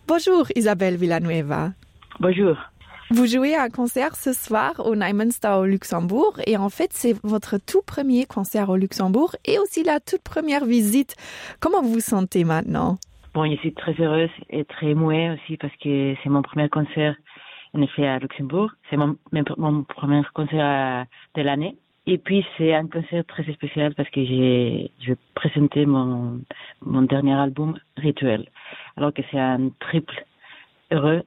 Bonjour Isabelle Villanueva. Bonjour. Vous jouez un concert ce soir au Neumünster au Luxembourg et en fait c'est votre tout premier concert au Luxembourg et aussi la toute première visite. Comment vous vous sentez maintenant? Bon, je suis très heureuse et très émouée aussi parce que c'est mon premier concert en effet à Luxembourg. C'est mon, mon premier concert à, de l'année. Et puis c'est un concert très spécial parce que j'ai je vais présenter mon, mon dernier album Rituel. Alors que c'est un triple heureux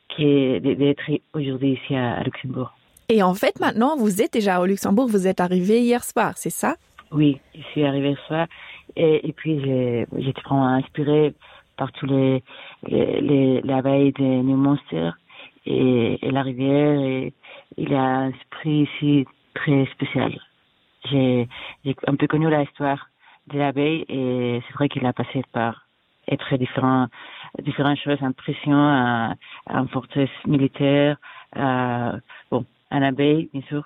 qui est d'être aujourd'hui ici à, à Luxembourg. Et en fait maintenant vous êtes déjà au Luxembourg, vous êtes arrivé hier soir, c'est ça? Oui, je suis arrivé hier soir et, et puis j'étais vraiment inspiré par tous les, les, les l'abeille des New Monsters et, et la rivière et il a un esprit ici très spécial. J'ai un peu connu l'histoire de l'abeille et c'est vrai qu'il a passé par et très différents différentes choses impression à, à une forteresse militaire à, bon un abeille bien sûr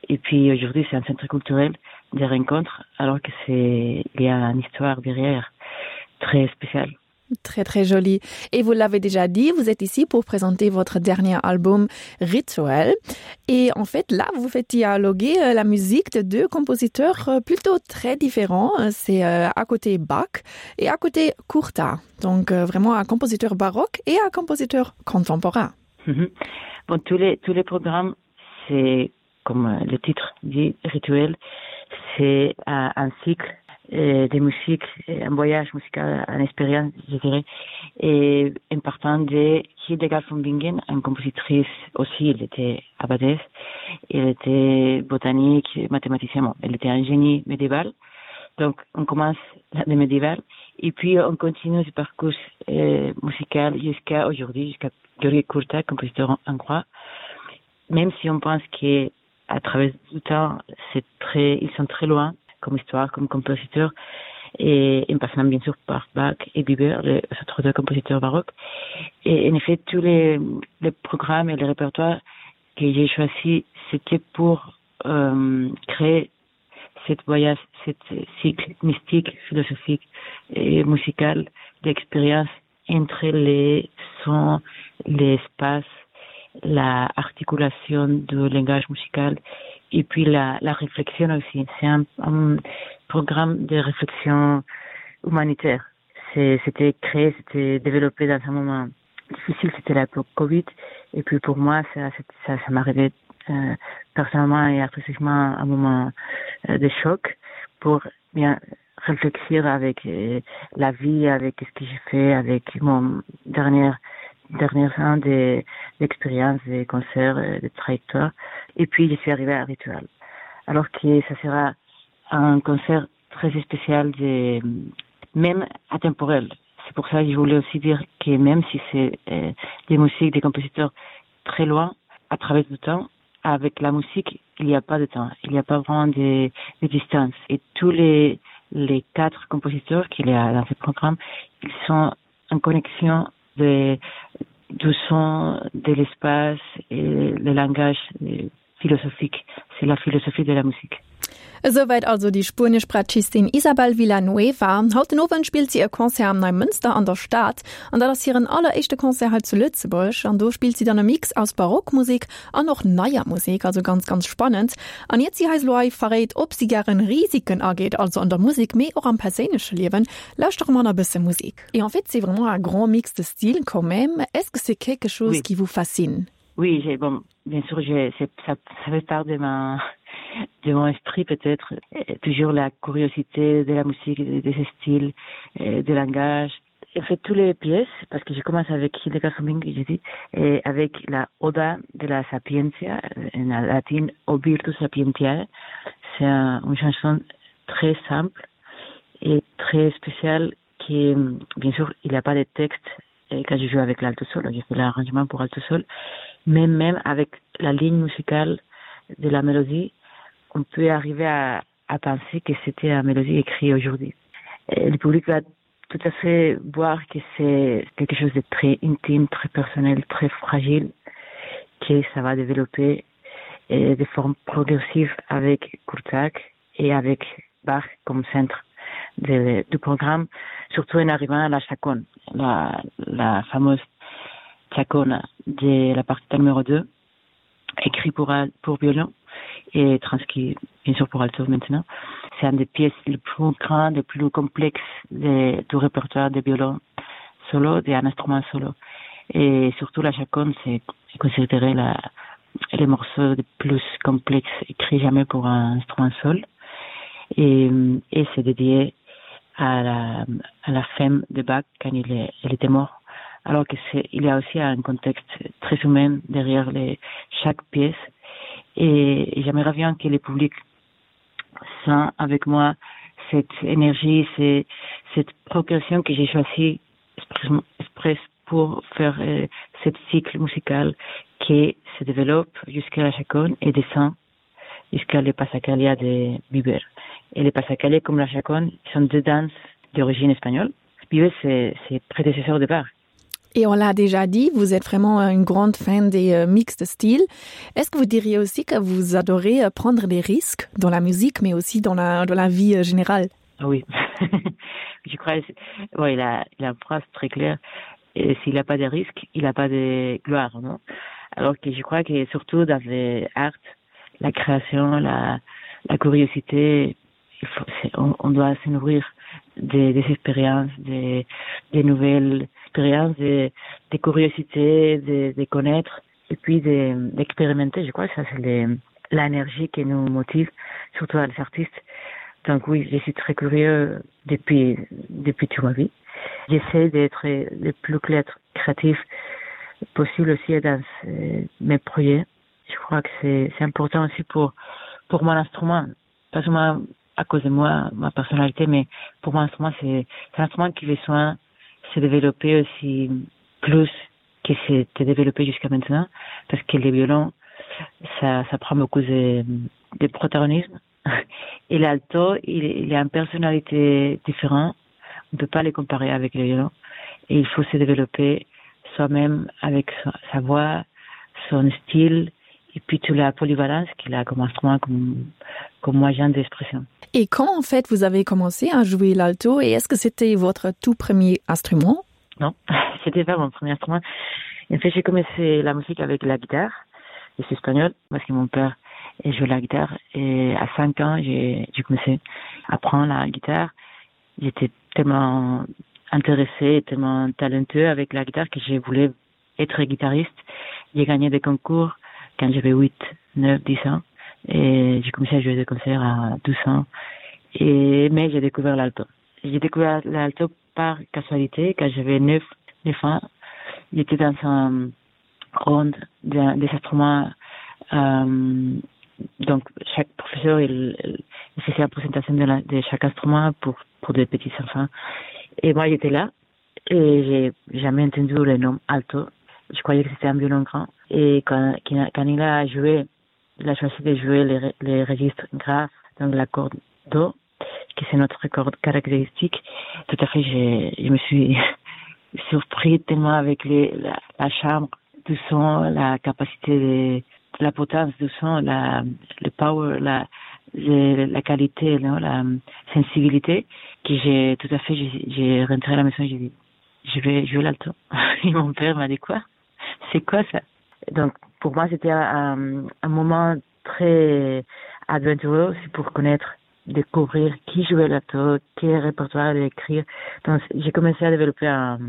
et puis aujourd'hui c'est un centre culturel des rencontres alors que c'est il y a une histoire derrière très spéciale. Très très joli. Et vous l'avez déjà dit, vous êtes ici pour présenter votre dernier album Rituel. Et en fait, là, vous faites dialoguer euh, la musique de deux compositeurs euh, plutôt très différents. C'est euh, à côté Bach et à côté Courta. Donc vraiment un compositeur baroque et un compositeur contemporain. Mhm. Bon, tous les, tous les programmes, c'est comme le titre dit Rituel, c'est un cycle euh, des musiques, un voyage musical, une expérience, je dirais, et en partant de Hildegard von Bingen, une compositrice aussi, elle était abbadesse, elle était botanique, mathématicienne, bon, elle était un génie médiéval. Donc on commence le médiéval et puis on continue ce parcours euh, musical jusqu'à aujourd'hui, jusqu'à Georgi Kurta, compositeur hongrois. Même si on pense qu'à travers du temps, c'est très, ils sont très loin comme histoire, comme compositeur, et en passant bien sûr par Bach et Bieber, les autres deux compositeurs baroques. Et en effet, tous les, les programmes et les répertoires que j'ai choisis, c'était pour euh, créer cette voyage, cette cycle mystique, philosophique et musical d'expérience entre les sons, l'espace, la articulation du langage musical et puis la, la réflexion aussi. C'est un, un programme de réflexion humanitaire. C'était créé, c'était développé dans un moment difficile, c'était la Covid. Et puis pour moi, ça, ça, ça m'arrivait euh, personnellement et artistiquement un moment euh, de choc pour bien réfléchir avec euh, la vie, avec ce que j'ai fait, avec mon dernier dernier an d'expérience, des concerts, euh, des trajectoires. Et puis je suis arrivée à Ritual. Alors que ça sera un concert très spécial, de, même atemporel. C'est pour ça que je voulais aussi dire que même si c'est euh, des musiques, des compositeurs très loin, à travers le temps, avec la musique, il n'y a pas de temps, il n'y a pas vraiment de, de distance. Et tous les, les quatre compositeurs qu'il y a dans ce programme, ils sont en connexion de, du son, de l'espace et le langage philosophique. C'est la philosophie de la musique. Esouwäit also déi spuenesch Bratschistin Isabel Villanueva. Haut den Owend spillt si e Concert am Neimënster an der Stad. An dat ass hiren alleréischte Concert hei zu Lëtzebuerg. An do spillt si dann e Mix aus Barockmusek an och neier Musek, also ganz, ganz spannend. An iert si eis elo hei verréit, ob si gären Risiken ageet, also an der Musek, mee och am perséinleche Liewen, lauschtere mer nach e bësse Musek. Et en fait, c'est vraiment un grand mix de styles quand même. Est-ce que c'est quelque chose oui. qui vous fascine? Oui, bon, bien sûr, ça, ça fait part de ma de mon esprit peut-être toujours la curiosité de la musique, de, de ces styles, euh, de langage. J'ai fait toutes les pièces parce que je commence avec Hildegard von Bingen, j'ai dit, et avec la Oda de la Sapientia, en latin O Virtus Sapientiae. C'est un, une chanson très simple et très spéciale qui, bien sûr, il n'y a pas de texte et quand je joue avec l'alto sol, j'ai fait l'arrangement pour alto sol, mais même avec la ligne musicale de la mélodie, on peut arriver à, à penser que c'était une mélodie écrite aujourd'hui. Et le public va tout à fait voir que c'est quelque chose de très intime, très personnel, très fragile, que ça va développer et de forme progressive avec Kurtak et avec Bach comme centre de, du programme, surtout en arrivant à la Chacon, la, la fameuse. Chacona de la partita numéro 2 écrit pour, pour violon et transcrit bien sûr pour alto maintenant. C'est un des pièces les plus grandes, les plus complexes de, du répertoire de violon solo, d'un instrument solo. Et surtout la chaconne, c'est considéré la, les morceaux les plus complexes écrits jamais pour un instrument seul. Et, et c'est dédié à la, à la femme de Bach quand il, est, il était mort. Alors que c'est, il y a aussi un contexte très humain derrière les, chaque pièce. Et, et j'aimerais bien que le public sent avec moi cette énergie, cette, cette progression que j'ai choisie express pour faire euh, ce cycle musical qui se développe jusqu'à la chaconne et descend jusqu'à le Passacalia de Biber. Et le Passacalia comme la chaconne sont deux danses d'origine espagnole. Biber, c'est prédécesseur de Bach. Et on l'a déjà dit, vous êtes vraiment une grande fan des euh, mix de styles. Est-ce que vous diriez aussi que vous adorez euh, prendre des risques dans la musique, mais aussi dans la, dans la vie euh, générale ah Oui, je crois bon, il, a, il a une phrase très claire. Et s'il n'a pas de risques, il n'a pas de gloire. Non Alors que je crois que surtout dans les arts, la création, la, la curiosité, il faut, on, on doit se nourrir des, des expériences, des, des nouvelles expériences, des, des curiosités, de, de connaître et puis d'expérimenter. Je crois que ça, c'est l'énergie qui nous motive, surtout les artistes. Donc oui, je suis très curieux depuis, depuis toute ma vie. J'essaie d'être le plus clair, créatif possible aussi dans mes projets. Je crois que c'est important aussi pour, pour mon instrument, pas seulement à cause de moi, ma personnalité, mais pour mon instrument, c'est un instrument qui besoin se développer aussi plus que c'était développé jusqu'à maintenant, parce que les violons, ça, ça prend beaucoup de, de protagonisme. Et l'alto, il, il a une personnalité différente. On ne peut pas les comparer avec les violons. Et il faut se développer soi-même avec sa, sa voix, son style et puis toute la polyvalence qu'il a comme instrument, comme, comme moyen d'expression. Et quand en fait vous avez commencé à jouer l'alto et est-ce que c'était votre tout premier instrument Non, c'était pas mon premier instrument. En fait, j'ai commencé la musique avec la guitare, je suis espagnol parce que mon père jouait la guitare et à 5 ans, j'ai commencé à apprendre la guitare. J'étais tellement intéressé, tellement talentueux avec la guitare que je voulais être guitariste. J'ai gagné des concours quand j'avais 8, 9, 10 ans et j'ai commencé à jouer des concerts à 12 ans. Et, mais j'ai découvert l'alto. J'ai découvert l'alto par casualité quand j'avais 9, 9 ans. J'étais dans un ronde des instruments. Euh, donc chaque professeur il, il faisait la présentation de, la, de chaque instrument pour, pour des petits enfants. Et moi j'étais là et j'ai jamais entendu le nom alto. Je croyais que c'était un violon grand. Et quand, quand il a joué, il a choisi de jouer les, les registres graves, donc la corde do, qui c'est notre corde caractéristique. Tout à fait, je me suis surpris tellement avec les, la, la chambre du son, la capacité de, la potence du son, la, le power, la, le, la qualité, non, la sensibilité, que j'ai tout à fait, j'ai rentré à la maison et j'ai dit, je vais jouer l'alto. Et mon père m'a dit quoi C'est quoi ça Donc pour moi, c'était un, un moment très aventureux aussi pour connaître, découvrir qui jouait l'alto, quel répertoire écrire. Donc j'ai commencé à développer un,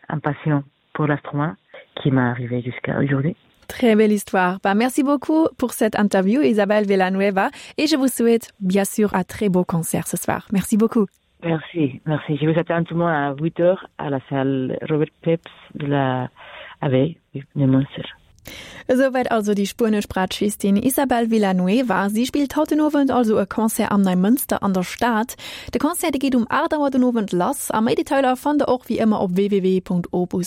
un passion pour l'instrument qui m'est arrivé jusqu'à aujourd'hui. Très belle histoire. Bah, merci beaucoup pour cette interview, Isabelle Villanueva, et je vous souhaite bien sûr un très beau concert ce soir. Merci beaucoup. Merci, merci. Je vous attends tout le monde à 8 heures à la salle Robert Peps de la Abbaye de Munster. Esouwäit also déi spuenesch Bratschistin Isabel Villanueva. Si spillt haut den Owend also e Concert am Neimënster an der Stad. De Concert dee geet um 8 Auer den Owend lass a méi Detailer fannt der och wéi ëmmer op www.opus.radio.